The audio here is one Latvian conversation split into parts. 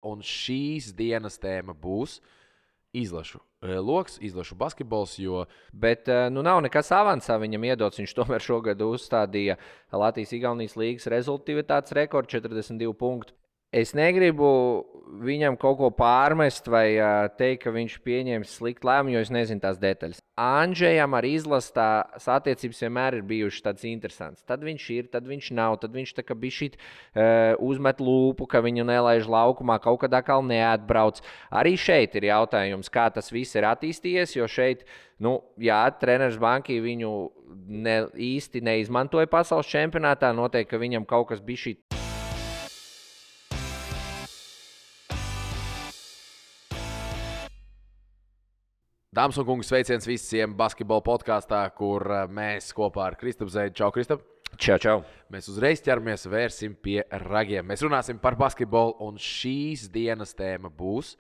un šīs dienas tēma būs izlašu loks, izlašu basketbols, jo... Bet nav nekas avansā viņam iedots. Viņš tomēr šogad uzstādīja Latvijas-Igaunijas līgas rezultātivitātes rekordu 42 punktu. Es negribu viņam kaut ko pārmest vai teikt, ka viņš pieņēmis sliktu lēmumu, jo es nezinu tās detaļas. Andžejam ar izlases tās attiecības vienmēr ir bijušas tādas interesantas. Tad viņš ir, tad viņš nav, tad viņš tā kā bišķīt uzmet lūpu, ka viņu nelaiž laukumā, kaut kad atkal neatbrauc. Arī šeit ir jautājums, kā tas viss ir attīstījies, jo šeit, treneris Banki viņu īsti neizmantoja pasaules čempionātā, noteikti, ka viņam kaut kas bišķīt. Dāmas un kungi, sveiciens visiem basketbola podkāstā, kur mēs kopā ar Kristapu Zeidu. Čau, Kristap! Čau! Mēs uzreiz ķeramies, vērsim pie ragiem. Mēs runāsim par basketbolu, un šīs dienas tēma būs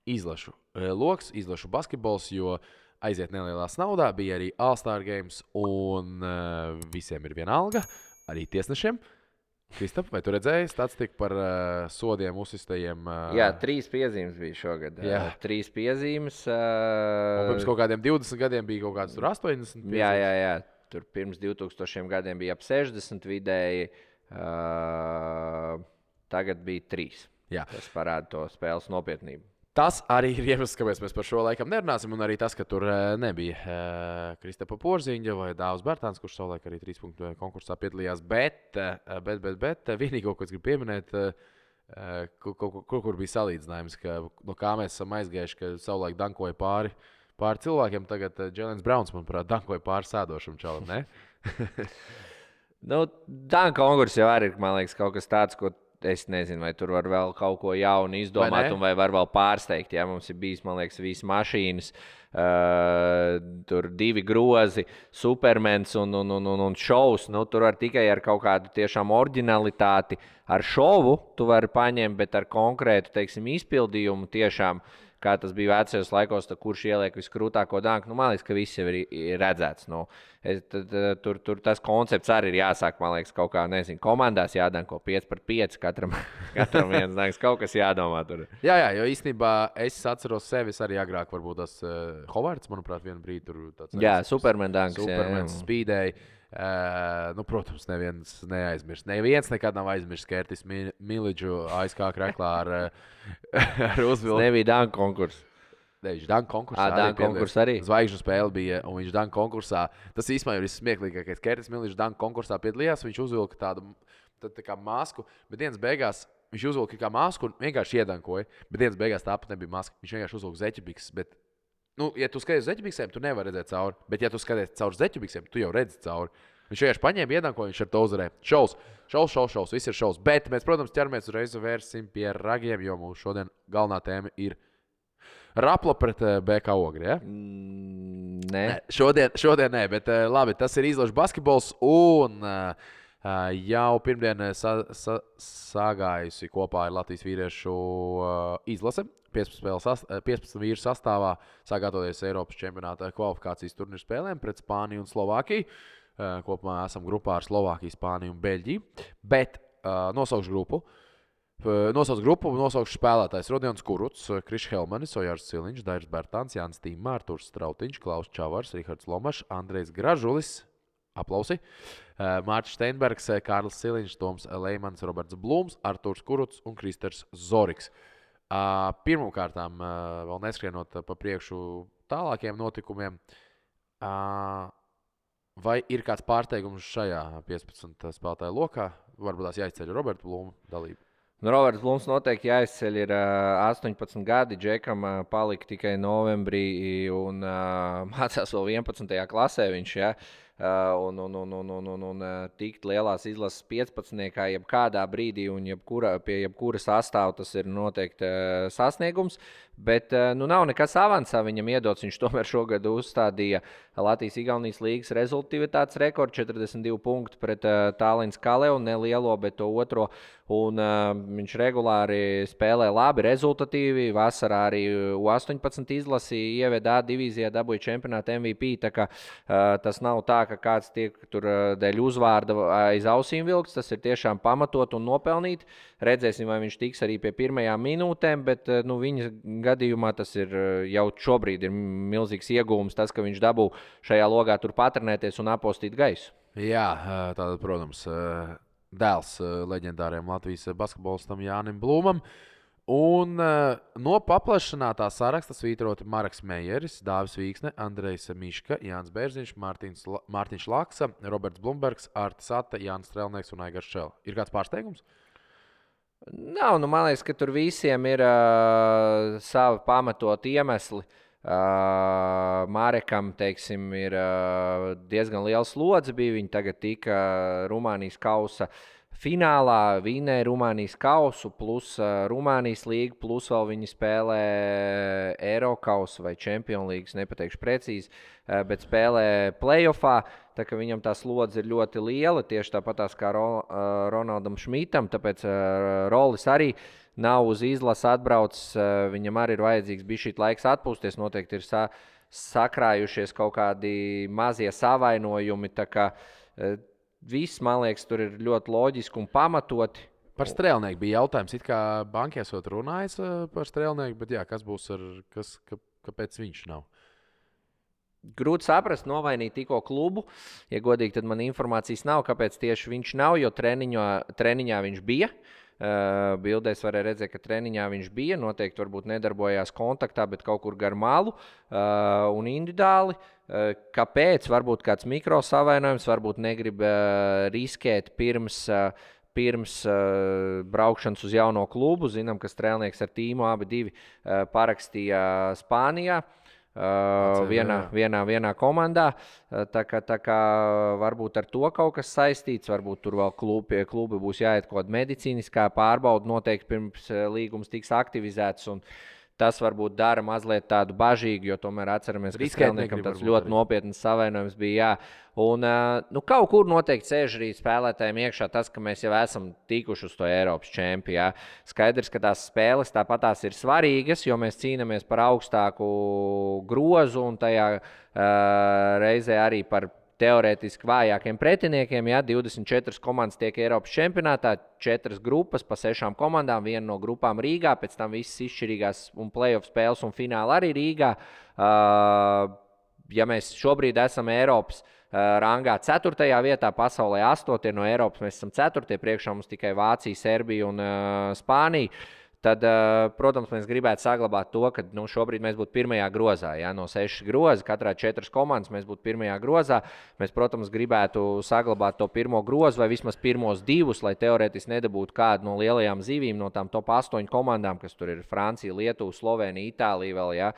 izlašu loks, izlašu basketbols, jo aiziet nelielās naudā, bija arī All-Star Games, un visiem ir viena alga, arī tiesnešiem. Kristap, vai tu redzēji statistiku par sodiem uzsistajiem? Jā, 3 piezīmes bija šogad. 3 piezīmes. Un pirms kaut kādiem 20 gadiem bija kaut kāds tur 80 piezīmes. Jā. Tur pirms 2000 gadiem bija ap 60 vidēji. Tagad bija 3. Jā. Tas parāda to spēles nopietnību. Tas arī ir iemesls, kāpēc mēs par šo laikam nerunāsim, un arī tas, ka tur nebija Kristapa Porziņa vai Dāvs Bērtāns, kurš savulaik arī 3 punktu konkursā piedalījās, bet vienīgo, ko es gribu pieminēt, kur bija salīdzinājums, ka no kā mēs esam aizgājuši, ka savulaik dankoja pāri cilvēkiem, tagad Jēlens Brauns, manuprāt, dankoja pāri sēdošam čalam, ne? Danka konkurss jau arī ir, man liekas, kaut kas tāds, ko es nezinu, vai tur var vēl kaut ko jaunu izdomāt, vai var vēl pārsteigt. Jā, mums ir bijis, man liekas, visas mašīnas, tur 2 grozi, Supermans un šovs. Tur var tikai ar kaut kādu tiešām oriģinalitāti, ar šovu tu vari paņemt, bet ar konkrētu, teiksim, izpildījumu tiešām, kā tas bija vecajos laikos, kurš ieliek viskrūtāko danku. Man liekas, ka viss jau ir redzēts. Tur tas koncepts arī ir jāsāk, man liekas, kaut kā, nezinu, komandās jādanko 5-5, katram viens danks, kaut kas jādomā tur. Jā, jo īstenībā es atceros sevis arī agrāk, varbūt tas Hovards, manuprāt, vienu brīdi tur tāds. Jā, Superman danks. Supermans spīdēja. Protams, neviens neaizmirst. Neviens nekad nav aizmirst Kertis Miliču ASK kreklā ar uzvilku. Nebija danku konkurss. Viņš danku konkursā danku konkursā arī. Zvaigžņu spēle bija, un viņš danku konkursā. Tas īstenībā ir smieklīgākais. Kertis Miličs danku konkursā piedalījās, viņš uzvilka tādu tā kā masku, bet dienas beigās viņš uzvilka kā masku un vienkārši iedankoja, bet dienas beigās tāpat nebija maska. Viņš vienkārši uzvilka zeķibikses, bet ja tu skaties zeķubiksēm, tu nevari redzēt cauri. Bet, ja tu skaties caur zeķubiksēm, tu jau redzi cauri. Viņš vienkārši paņēma iedankoju, viņš ar to uzvarēja. Šaus, viss ir šaus. Bet mēs, protams, ķeramies uzreiz vērsim pie ragiem, jo mūsu šodien galvenā tēma ir Rapla pret BK Ogri, ja? Nē. Šodien nē, bet labi, tas ir izlašu basketbols un jau pirmdien sagājusi kopā ar Latvijas vīriešu izlase. 15 vīru sastāvā sākātoties Eiropas čempionāta kvalifikācijas turnīru spēlēm pret Spāniju un Slovākiju. Kopumā esam grupā ar Slovākiju, Spāniju un Beļģiju. Bet nosaukšu grupu. Nosaukšu spēlētājs Rodions Kurucs, Krišs Helmanis, Ojārs Ciliņš, Dairis Bērtāns, Jānis Tīmā, Arturs Strautiņš, Klaus Čavars, Rihards Lomašs, Andrejs Gražulis, aplausi, Mārķis Steinbergs, Kārlis Ciliņš, Toms Leimans, Roberts Blūms, Arturs Kurucs un Kristers Zoriks. Pirmkārtām, vēl neskrienot pa priekšu tālākiem notikumiem, vai ir kāds pārsteigums šajā 15 spēlētāju lokā? Varbūt tās jāizceļ Roberta Blūma dalība. Roberts Blūms noteikti jāizceļ, ir 18 gadi, Džekam palika tikai novembrī un mācās vēl 11. klasē viņš, ja? Un tikt lielās izlases 15. jebkādā brīdī un pie jebkura sastāva tas ir noteikti sasniegums, bet nav nekas avansā viņam iedots. Viņš tomēr šogad uzstādīja Latvijas-Igaunijas līgas rezultātivitātes rekordu 42 punktu pret Tallinas Kaleu, ne lielo, bet to otro, un viņš regulāri spēlē labi, rezultatīvi. Vasarā arī U18 izlasi ieveda A divīzijā, dabūja čempionāta MVP, tā kā tas nav tā, ka kāds tiek tur dēļ uzvārda aiz ausīm vilks, tas ir tiešām pamatot un nopelnīt. Redzēsim, vai viņš tiks arī pie pirmajām minūtēm, bet viņa gadījumā tas ir jau šobrīd ir milzīgs iegūms, tas, ka viņš dabū šajā logā tur patrenēties un apostīt gaisu. Jā, tātad, protams, dēls leģendāriem Latvijas basketbolistam Jānim Blūmam. Un no paplašinātā saraksta svītroti Marks Meijeris, Dāvis Vīksne, Andrejs Miška, Jānis Bērziņš, Mārtiņš Laksa, Roberts Blumbergs, Artis Ata, Jānis Strelnieks un Aigars Šela. Ir kāds pārsteigums? Nav, man liekas, ka tur visiem ir savi pamatot iemesli. Mārekam, teiksim, ir diezgan liels slodze bija. Viņi tagad tika Rumānijas kausa finālā, vinēja Rumānijas kausu, plus Rumānijas līga, plus vēl viņi spēlē Eirokausu vai Champions League, nepateikšu precīzi, bet spēlē playoffā. Tā kā viņam tā slodze ir ļoti liela, tieši tāpatās kā Ronaldam Šmitam, tāpēc Rolis arī nav uz izlasi atbraucis, viņam arī ir vajadzīgs bišķīt laiks atpūsties, noteikti ir sakrājušies kaut kādi mazie savainojumi, tā kā viss, man liekas, tur ir ļoti loģiski un pamatoti. Par Strēlnieku bija jautājums, it kā banki esot runājis par Strēlnieku, bet jā, kas būs kāpēc viņš nav? Grūti saprast, novainīt tikko klubu. Ja godīgi, tad man informācijas nav, kāpēc tieši viņš nav, jo treniņā viņš bija. Bildēs varēja redzēt, ka treniņā viņš bija. Noteikti varbūt nedarbojās kontaktā, bet kaut kur gar malu un individuāli. Kāpēc? Varbūt kāds mikrosavainojums, varbūt negrib riskēt pirms braukšanas uz jauno klubu. Zinām, ka Strēlnieks ar tīmu abi divi parakstīja Spānijā. Vienā komandā. Tā kā varbūt ar to kaut kas saistīts, varbūt tur vēl klubi būs jāiet kaut kāda medicīniskā pārbauda, noteikti pirms līgums tiks aktivizēts. Un tas varbūt dara mazliet tādu bažīgu, jo tomēr atceramies, ka Strēlniekam tāds ļoti nopietns savainojums bija. Jā. Un kaut kur noteikti sēž arī spēlētājiem iekšā tas, ka mēs jau esam tikuši uz to Eiropas čempionātu. Skaidrs, ka tās spēles tāpatās ir svarīgas, jo mēs cīnāmies par augstāku grozu un tajā reizē arī par teorētiski vājākiem pretiniekiem. Jā, 24 komandas tiek Eiropas čempionātā, 4 grupas pa 6 komandām, viena no grupām Rīgā, pēc tam visas izšķirīgās un playoff spēles un fināli arī Rīgā. Ja mēs šobrīd esam Eiropas rangā 4. vietā, pasaulē 8. no Eiropas, mēs esam 4. priekšā mums tikai Vācija, Serbija un Spānija. Tad, protams, mēs gribētu saglabāt to, ka šobrīd mēs būtu pirmajā grozā. Jā, no 6 grozi, katrā 4 komandas mēs būtu pirmajā grozā. Mēs, protams, gribētu saglabāt to pirmo grozu vai vismaz pirmos 2, lai teorētiski nedabūtu kādu no lielajām zivīm, no tām top 8 komandām, kas tur ir Francija, Lietuva, Slovenija, Itālija vēl. Jā.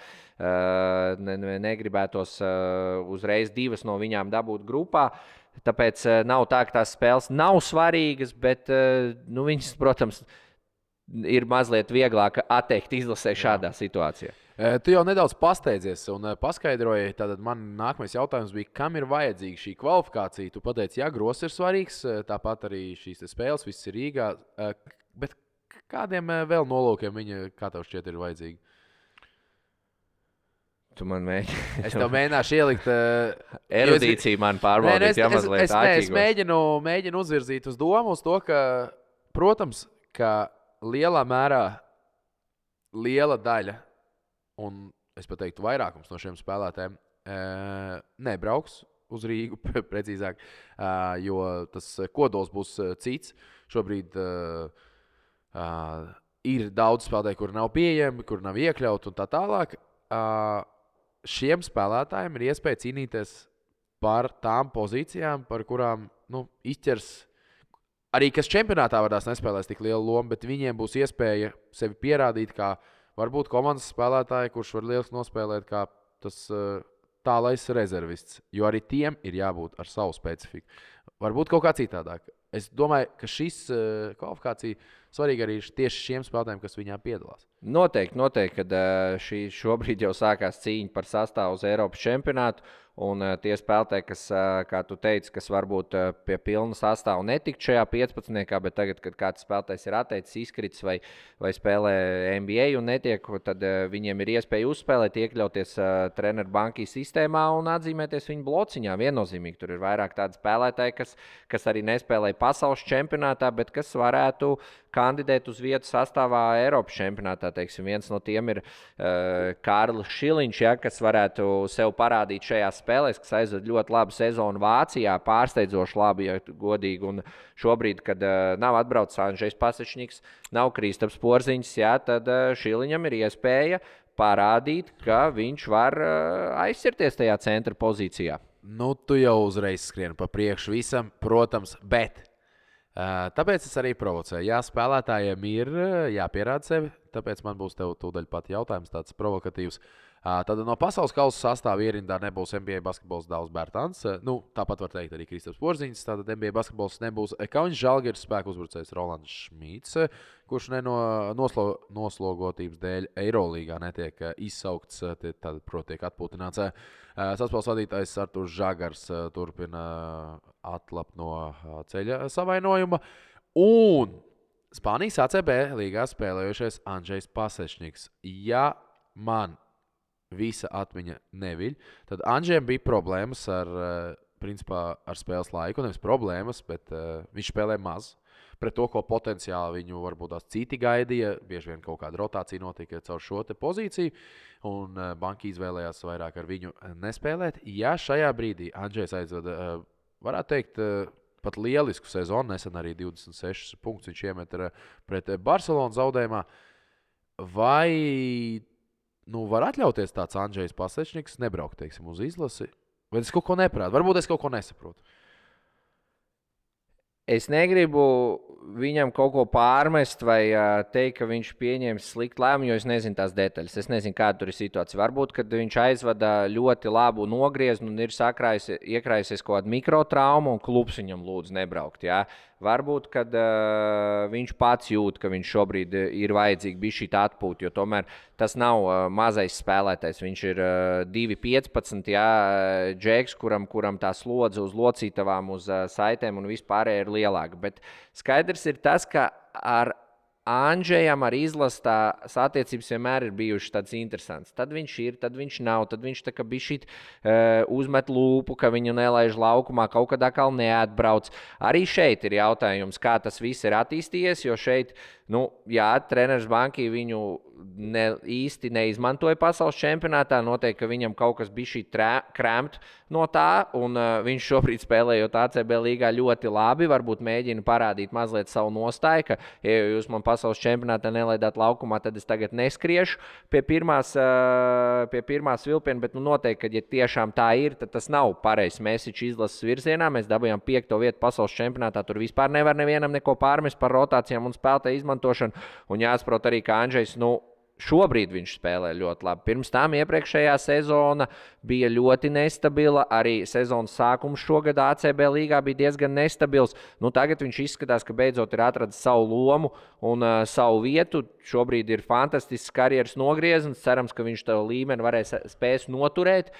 Negribētos uzreiz 2 no viņām dabūt grupā. Tāpēc nav tā, ka tās spēles nav svarīgas, bet viņas, protams, ir mazliet vieglāk atteikt izlasē šādā situācijā. Tu jau nedaudz pasteidzies un paskaidroji. Tātad man nākamais jautājums bija, kam ir vajadzīga šī kvalifikācija? Tu pateici, jā, grozs ir svarīgs, tāpat arī šīs spēles, viss ir Rīgā. Bet kādiem vēl nolūkiem viņa, kā tev šķiet, ir vajadzīga? Tu man mēģini. Es tev mēģināšu ielikt. Erudīciju man pārbaudīt, ja mazliet āķīgos. Es mēģinu uzvirzīt uz domu uz to, ka, protams, ka lielā mērā liela daļa, un es pat teiktu vairākums no šiem spēlētājiem, nebrauks uz Rīgu, precīzāk, jo tas kodols būs cits. Šobrīd ir daudz spēlētāji, kuri nav pieejami, kuri nav iekļauti un tā tālāk. Šiem spēlētājiem ir iespēja cīnīties par tām pozīcijām, par kurām izķers arī, kas čempionātā varēs nespēlēs tik lielu lomu, bet viņiem būs iespēja sevi pierādīt, kā varbūt komandas spēlētāji, kurš var lieliski nospēlēt, kā tas tālais rezervists. Jo arī tiem ir jābūt ar savu specifiku. Varbūt kaut kā citādāk. Es domāju, ka šis kvalifikācija svarīga arī tieši šiem spēlētājiem, kas viņā piedalās. Noteikti, kad šobrīd jau sākās cīņa par sastāvu uz Eiropas čempionātu. Un tie spēlētāji, kas, kā tu teici, kas varbūt pie pilna sastāvā netika šajā 15. bet tagad, kad kāds spēlētājs ir atteicis, izkritis vai spēlē NBA un netiek, tad viņiem ir iespēja uzspēlēt, iekļauties treneru bankī sistēmā un atzīmēties viņu blociņā. Viennozīmīgi tur ir vairāk tādi spēlētāji, kas arī nespēlēja pasaules čempionātā, bet kas varētu kandidēt uz vietu sastāvā Eiropas čempionātā. Teiksim, viens no tiem ir Kārlis Šiliņš, kas varētu sev parādīt šajās spēlēs, kas aizved ļoti labu sezonu Vācijā, pārsteidzoši labi, ja godīgi. Un šobrīd, kad nav atbraucis Andžejs Pasečniks, nav Kristaps Porziņš, tad Šiliņam ir iespēja parādīt, ka viņš var aizsirties tajā centra pozīcijā. Nu, tu jau uzreiz skrieni pa priekšu visam, protams, bet tāpēc es arī provocēju. Jā, spēlētājiem ir jāpierāda sevi, tāpēc man būs tev tūdaļ pat jautājums tāds provokatīvs. Tad no pasaules kausa sastāvā ierindā nebūs NBA basketbols Dāvs Bērtāns. Tāpat var teikt arī Kristaps Porziņš. Tātad NBA basketbols nebūs Kaunis Žalgiris spēku uzbrucējs Rolands Šmīts, kurš noslogotības dēļ Eirolīgā netiek izsaukts, tad, proti, tiek atpūtināts. Saspēles vadītājs Arturs Žagars turpina atlapt no ceļa savainojuma. Un Spānijas ACB līgā spēlējušies Andžejs Pasečniks. Ja man visa atmiņa neviļ, tad Andžejam bija problēmas ar spēles laiku. Nevis problēmas, bet viņš spēlē maz. Pret to, ko potenciāli viņu varbūt tās citi gaidīja, bieži vien kaut kāda rotācija notika caur šo te pozīciju, un banka izvēlējās vairāk ar viņu nespēlēt. Ja šajā brīdī Andžejs aizveda, varētu teikt, pat lielisku sezonu, nesen arī 26 punktus viņš iemet pret Barcelonas zaudējumā, vai var atļauties tāds Andžejs Pasečniks nebraukt, teiksim, uz izlasi? Vai es kaut ko neprātu? Varbūt es kaut ko nesaprotu. Es negribu viņam kaut ko pārmest vai teikt, ka viņš pieņems sliktu lēmumu, jo es nezinu tās detaļas. Es nezinu, kāda tur ir situācija. Varbūt, kad viņš aizvada ļoti labu nogriezni un ir iekrājusies kaut kāda mikrotrauma un klubs viņam lūdz nebraukt. Jā. Varbūt, kad viņš pats jūt, ka viņš šobrīd ir vajadzīgi bija šī atpūta, jo tomēr tas nav mazais spēlētājs. Viņš ir 2,15 džeks, kuram tā slodze uz locītavām, uz saitēm un vispārēji ir lielāka. Bet skaidrs ir tas, ka ar Andžejam ar izlases tās attiecības vienmēr ir bijušas tādas interesantas. Tad viņš ir, tad viņš nav, tad viņš tā kā bišķīt uzmet lūpu, ka viņu nelaiž laukumā, kaut kad atkal neatbrauc. Arī šeit ir jautājums, kā tas viss ir attīstījies, jo šeit, treneris bankī viņu īsti neizmantoja pasaules čempionātā. Noteikti, ka viņam kaut kas bija šī krēmt no tā, un viņš šobrīd spēlējot ACB līgā ļoti labi. Varbūt mēģina parādīt mazliet savu nostāju, ka, ja jūs man pasaules čempionātā nelaidāt laukumā, tad es tagad neskriešu pie pirmās vilpiena, bet noteikti, ka, ja tiešām tā ir, tad tas nav pareizs mesiķis izlases virzienā. Mēs dabūjām 5. vietu pasaules čempionātā, tur vispār nevar nevienam neko pārmest par rotācijām un spēlētāju izmantošanu, un jāsaprot arī, ka Andžejs, šobrīd viņš spēlē ļoti labi. Pirms tam iepriekšējā sezona bija ļoti nestabila. Arī sezonas sākums šogad ACB līgā bija diezgan nestabils. Tagad viņš izskatās, ka beidzot ir atradis savu lomu un savu vietu. Šobrīd ir fantastisks karjeras nogrieznis. Cerams, ka viņš to līmeni spēs noturēt.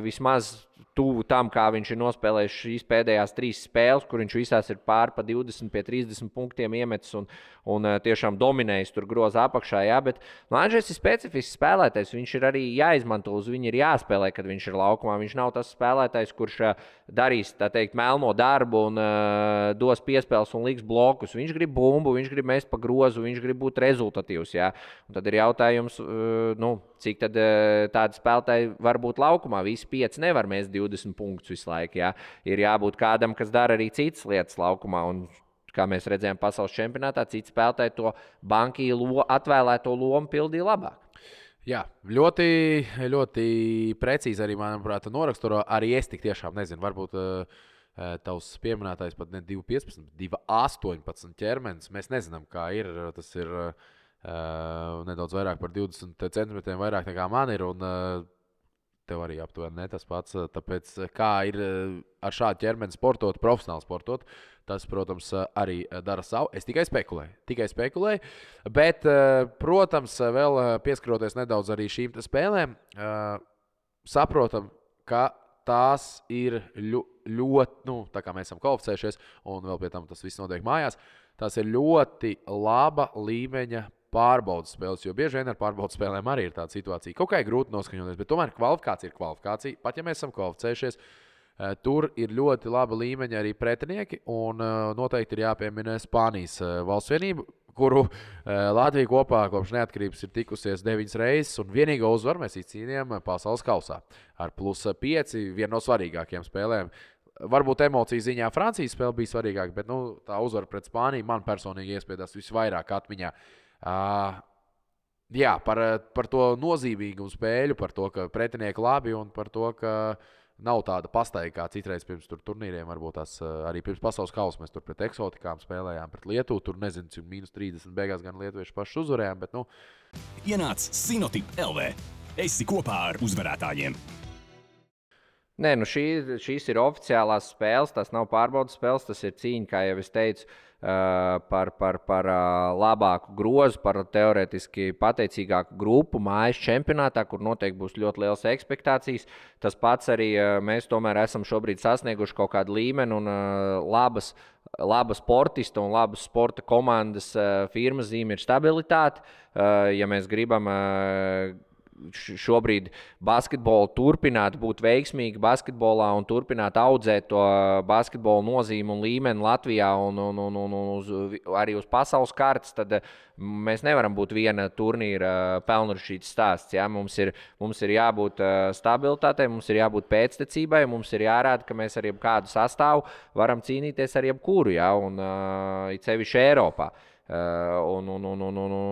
Vismaz tuvu tam, kā viņš ir nospēlējis šīs pēdējās 3 spēles, kur viņš visās ir pār pa 20 pie 30 punktiem iemetis un tiešām dominējis tur groza apakšā. Jā, bet Andžejs ir specifisks spēlētājs. Viņš ir arī jāizmanto, uz viņu ir jāspēlē, kad viņš ir laukumā. Viņš nav tas spēlētājs, kurš darīs, tā teikt, melno darbu un dos piespēles un liks blokus. Viņš grib bumbu, viņš grib mest pa grozu, viņš grib būt rezultatīvs. Jā. Un tad ir jautājums, cik tad tādi spēlētāji var būt laukumā. Visi 5 nevar mest 20 punktus visu laiku. Jā. Ir jābūt kādam, kas dara arī citas lietas laukumā. Un, kā mēs redzējām pasaules čempionātā, citi spēlētāji to bankī atvēlēto lomu pildīja labāk. Jā, ļoti, ļoti precīzi arī, manuprāt, noraksturo. Arī es tik tiešām nezinu, varbūt tavs pieminētais pat ne 2,15, 2,18 ķermenis. Mēs nezinām, kā ir. Tas ir nedaudz vairāk par 20 centimetriem vairāk nekā man ir. Un tev arī aptuveni ne tas pats. Tāpēc, kā ir ar šādu ķermeni sportot, profesionāli sportot, tas, protams, arī dara savu. Es tikai spekulēju. Bet, protams, vēl pieskaroties nedaudz arī šīm spēlēm, saprotam, ka tās ir ļoti, tā kā mēs esam kvalificējušies, un vēl pie tam tas viss notiek mājās, tās ir ļoti laba līmeņa pārbaudas spēles, jo bieži vien ar pārbaudas spēlēm arī ir tāda situācija. Kaut kā ir grūti noskaņoties, bet tomēr kvalifikācija ir kvalifikācija. Pat ja mēs esam kvalificējušies, tur ir ļoti laba līmeņa arī pretinieki, un noteikti ir jāpiemina Spānijas valsts vienība, kuru Latvija kopā kopš neatkarības ir tikusies 9 reizes, un vienīgo uzvaru mēs izcīnījām pasaules kausā ar +5, viena no svarīgākajām spēlēm. Varbūt emociju ziņā Francijas spēle bija svarīgāka, bet tā uzvara pret Spāniju man personīgi iespiedās visvairāk atmiņā. Jā, par to nozīmīgumu spēļu, par to, ka pretinieki labi un par to, ka nav tāda pastaiga kā citreiz pirms turnīriem. Varbūt tās arī pirms pasaules kausa mēs tur pret eksotikām spēlējām, pret Lietuvu. Tur nezinu, cik -30 beigās gan lietuvieši paši uzvarējām. Bet, Ienāc Sinotip LV. Esi kopā ar uzvarētājiem. Nē, šīs ir oficiālās spēles, tās nav pārbaudas spēles, tas ir cīņa, kā jau es teicu, par labāku grozu, par teorētiski pateicīgāku grupu mājas čempionātā, kur noteikti būs ļoti liels ekspektācijas. Tas pats arī mēs tomēr esam šobrīd sasnieguši kaut kādu līmeni un labas sportista un labas sporta komandas firmas zīme ir stabilitāte. Ja mēs gribam šobrīd basketbolu turpināt būt veiksmīgi basketbolā un turpināt audzēt to basketbolu nozīmi un līmeni Latvijā un arī uz pasaules kartes, tad mēs nevaram būt viena turnīra pelnrušītas stāsts. Ja? Mums ir jābūt stabilitātei, mums ir jābūt pēctecībai, mums ir jārāda, ka mēs ar jebkādu sastāvu varam cīnīties ar jebkuru, ja? Un it sevišķi Eiropā. Un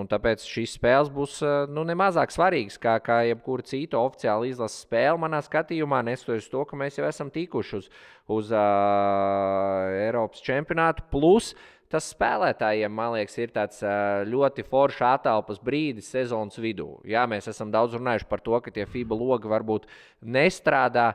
tāpēc šīs spēles būs nemazāk svarīgas kā jebkura cita oficiāla izlases spēle manā skatījumā, neskatoties to, ka mēs jau esam tikuši uz Eiropas čempionātu. Plus tas spēlētājiem, man liekas, ir tāds ļoti foršs atelpas brīdis sezonas vidū. Jā, mēs esam daudz runājuši par to, ka tie FIBA logi varbūt nestrādā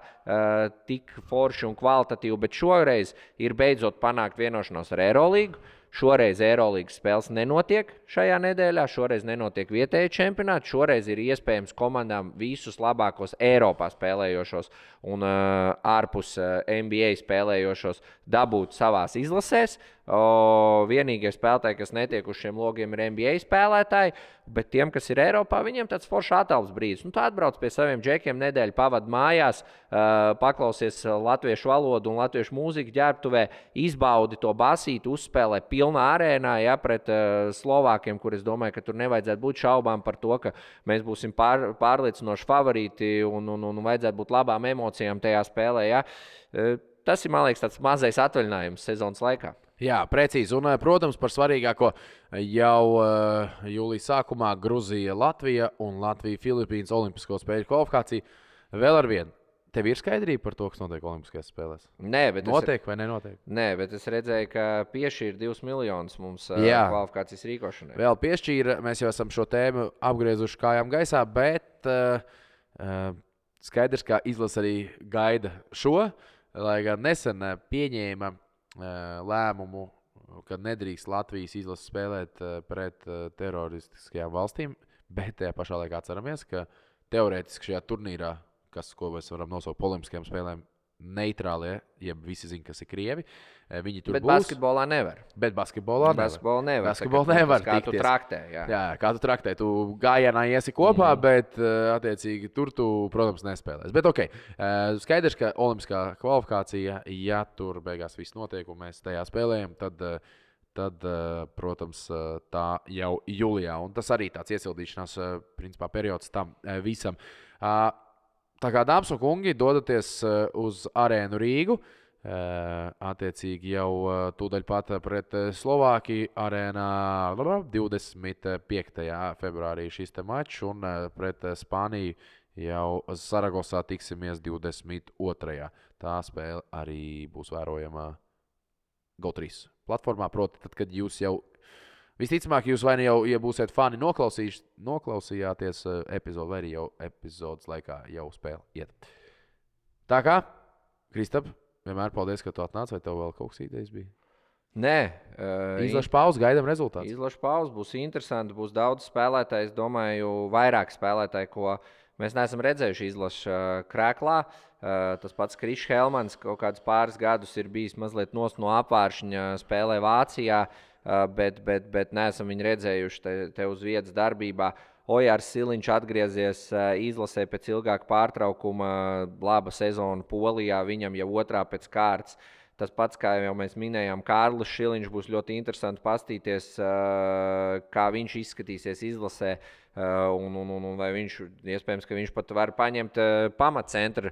tik forši un kvalitatīvi, bet šoreiz ir beidzot panākt vienošanos ar Eirolīgu. Šoreiz Eirolīgas spēles nenotiek šajā nedēļā, šoreiz nenotiek vietēji čempionāti, šoreiz ir iespējams komandām visus labākos Eiropā spēlējošos un ārpus NBA spēlējošos dabūt savās izlasēs. Vienīgie spēlētāji, kas netiek uz šiem logiem, ir NBA spēlētāji, bet tiem, kas ir Eiropā, viņiem tāds foršs atelpas brīdis. Tu atbrauc pie saviem džekiem nedēļu, pavadi mājās, paklausies latviešu valodu un latviešu mūziku ģērbtuvē, izbaudi to basīti, uzspēlē pilnā arēnā, ja, pret Slovākiem, kur es domāju, ka tur nevajadzētu būt šaubām par to, ka mēs būsim pārliecinoši favorīti un vajadzētu būt labām emocijām tajā spēlē. Ja. Tas ir, man liekas, tāds mazais atvaļinājums sezonas laikā. Jā, precīzi. Un, protams, par svarīgāko jau jūlijas sākumā Gruzija, Latvija un Latvija-Filipīnas olimpisko spēļu kvalifikācija. Vēl ar vienu. Tev ir skaidrība par to, kas notiek Olimpiskajās spēlēs? Nē, bet notiek vai nenotiek? Nē, bet es redzēju, ka piešķīra 2 miljonus mums kvalifikācijas rīkošanai. Vēl piešķīra, mēs jau esam šo tēmu apgriezuši kājām gaisā, bet skaidrs, ka izlase arī gaida šo, lai gan nesen pieņēma lēmumu, ka nedrīkst Latvijas izlase spēlēt pret teroristiskajām valstīm, bet tajā pašā laikā atceramies, ka teorētiski šajā turnīrā, ko mēs varam nosaukt par olimpiskajām spēlēm, neitrālie, ja visi zina, kas ir krievi. Viņi tur bet būs. Basketbolā nevar. Bet basketbolā nevar. Basketbolā nevar. Kā tu traktē. Jā, kā tu traktē. Tu gājienā iesi kopā, bet attiecīgi tur tu, protams, nespēlēs. Bet ok, skaidrs, ka olimpiskā kvalifikācija, ja tur beigās viss notiek un mēs tajā spēlējam, tad, protams, tā jau jūlijā. Un tas arī tāds iesildīšanās principā periods tam visam. Tā kā dāmas un kungi dodaties uz arēnu Rīgu, attiecīgi jau tūdaļ pat pret Slovākiju arēnā 25. februārī šis te mačs un pret Spāniju jau Saragosā tiksimies 22. Tā spēle arī būs vērojama GO3 platformā, proti tad, kad jūs jau visticamāk, jūs vai ne jau, ja būsiet fani, noklausījāties epizodu, vai arī jau epizodes laikā jau spēle iet. Tā kā, Kristap, vienmēr paldies, ka tu atnāc, vai tev vēl kaut kas idejas bija? Nē. Izlašu pauzi, gaidām rezultātus. Izlašu pauzi, būs interesanti, būs daudz spēlētāju, es domāju, vairāk spēlētāju, ko Mēs neesam redzējuši izlašu krēklā. Tas pats Krišs Helmans kaut kādus pāris gadus ir bijis mazliet no apvāršņa, spēlē Vācijā, bet neesam viņu redzējuši te uz vietas darbībā. Ojārs Siliņš atgriezies izlasē pēc ilgāka pārtraukuma, laba sezona Polijā, viņam jau otrā pēc kārtas. Tas pats, kā jau mēs minējām, Kārlis Šiliņš būs ļoti interesanti paskatīties, kā viņš izskatīsies izlasē. Vai viņš, iespējams, ka viņš pat var paņemt pamatcentra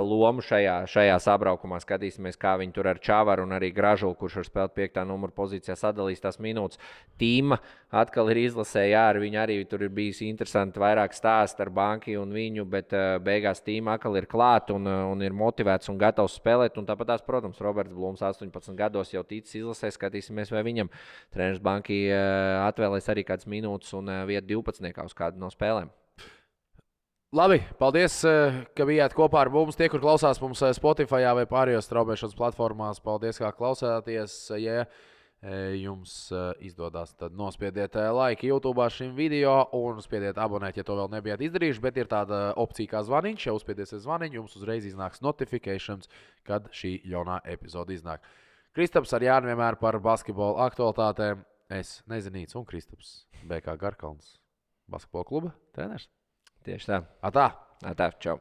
lomu šajā sabraukumā. Skatīsimies, kā viņi tur ar Čavaru un arī Gražulu, kurš var spēlēt 5. numuru pozīcijā, sadalīs tās minūtes. Tīma atkal ir izlasē, jā, ar viņu arī tur ir bijis interesanti vairāk stāst ar Banki un viņu, bet beigās Tīma atkal ir klāt un ir motivēts un gatavs spēlēt. Un tāpat tās, protams, Roberts Blūms 18 gados jau ticis izlasē, skatīsimies, vai viņam treneris Banki atvēlēs arī kādas minūtes un vietu 12. uz kādu no spēlēm. Labi, paldies, ka bijāt kopā ar mums. Tie, kur klausās mums Spotify vai pārējos straumēšanas platformās, paldies, kā klausāties. Ja jums izdodas, tad nospiediet laiku YouTube šim video un spiediet abonēt, ja to vēl nebijāt izdarījuši. Bet ir tāda opcija kā zvaniņš. Ja uzspiediesiet zvaniņu, jums uzreiz iznāks notifications, kad šī jaunā epizode iznāk. Kristaps ar Jāni vienmēr par basketbolu aktualitātēm. Es Nezinīts un Kristaps BK Garkalns. Basketbola kluba treneris. Tieši tā. Atā. Atā, čau.